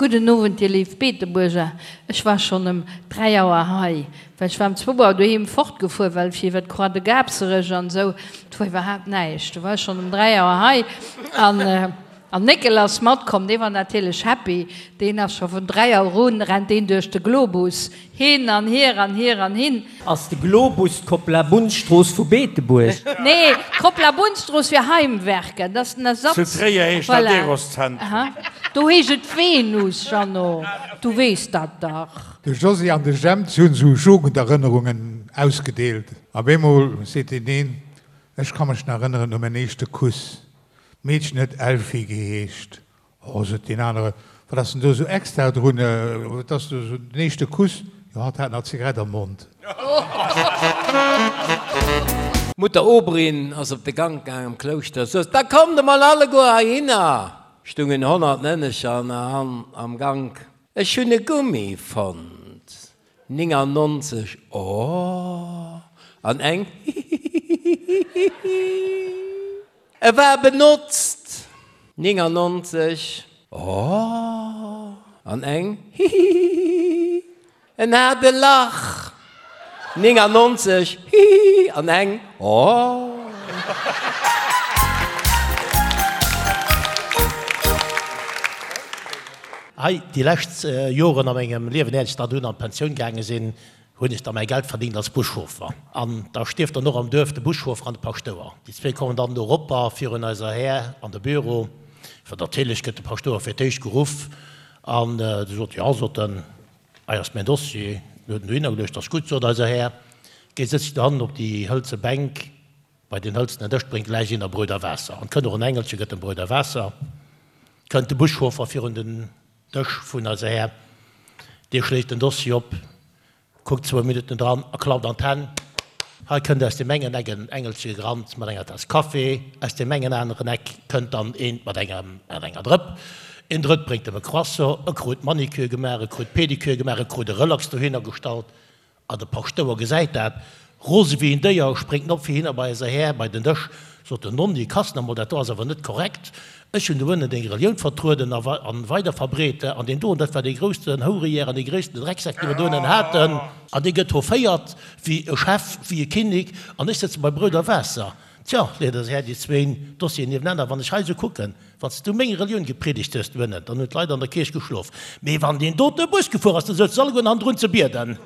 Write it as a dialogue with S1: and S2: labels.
S1: Gudden Owend, dir léif Beetebuerger. Ech war schonn ëm 3 Auer hei, well ech war ëm zwou Auer doheem fortgefuer, well fir iwwer d'Croix de Gabserech an esou, do war iwwerhaapt näischt. Do war ech schonn ëm 3 Auer hei an an Néckel ass matkomm. Dee war natierlech happy, deen ass scho vun 3 Auer un rennt deen duerch de Globus hin an hier an hier an hin.
S2: Ass de Globus d'Kopplabunzstrooss vu Beetebuerg?
S1: Nee, d'Kopplabunzstrooss fir Heimwerker, dat ass den Ersatz.
S3: Zu Tréier heescht dat
S1: Voilà.
S3: Eroszentrum.
S1: Aha. Do heescht et Venus, Jeannot, du weess dat dach.
S4: De Josy an de Jemp, si hunn esou Jugenderënnerungen ausgedeelt. Op eemol seet deen een, Ech ka mech nach erënneren u mäin éischte Kuss. D'Meedchen huet Elfi geheescht. Oh, sot deen anere, wat ass denn do esou extra drun? Et ass do esou den éischte Kuss. Jo, hatt hat nach d'Zigarett am Mond.
S5: D'Mutter Oberin ass op de Gank gaang am Klouschter, sot, Da kommt emol alleguer heihinner! Stungen 100 Mënnecher an am Gank. Ech hunn e Gummi fonnt. 99, Oh! An eng, Hihihihihihi. E war benotzt! 99, Oh! An eng, Hihihihi! En hat e Lach! 99, Hihihi! An eng, Oh!
S6: Hei, déi lescht Joren a mengem Liewen, éier ech dann dunn an d'Pensioun gaange sinn, hunn ech da mäi Geld verdingt als Buschauffer. An da stierft dann och am Duerf de Buschauffer an de Paschtouer. Déi zwéi kommen dann do eropper virun eiser Här an de Büro. Well natierlech gëtt de Paschtouer fir d'éischt geruff. An du sot, Jo, sot en, hei ass mäin Dossier. Du huet en dohinner geluecht. Ass gutt, sot eiser Här. Géi sëtz dech dohannen op déi hëlze Bänk bei deen hëlzenen Dësch, bréngt gläich een der Bröt a Waasser. An 't kënnt och en Engelche, gëtt em Bröt a Waasser. Kënnt de Buschauffer virun den Dësch vun eiser Här, dee schléit den Dossier op, kuckt zwou Minutten dran a klappt an d'Hänn. Hei kënnt aus deem engen Eck en Engelche gerannt mat enger Taass Kaffi, aus deem engen aneren Eck kënnt dann eent mat engem, mat enger Drëpp, een Drëtt bréngt em e Croissant, e krut Manicure gemaach, e krut Pedicure gemaach, e krut e Relax dohinner gestallt. A de Paschtouer gesäit dat, rose wéi en Déier, spréngt en op fir hinner bei eiser Här bei den Dësch, sot en, Nonni, Kass nach mol, dat do ass awer net korrekt, ech hunn do ënnen deng Relioun vertrueden a weider verbreet, an deen doen, dat war dee groussten Hourejär an dee gréissten Drecksak, dee mer do ënnen haten, an dee gëtt hoféiert wéi e Chef, wéi e Kinnek, an ech sëtze bei Brout a Waasser. Tjo, leet eise Här déi zwéin Dossieren niewenaner, wann ech hei esou kucken, Wann s du meng Relioun gepriedegt hues doënnen, dann hunn d'Leit an der Kierch geschlof. Mee wann deen dote Bus gefuer ass, da souze se alleguerten hannendrun ze bieden.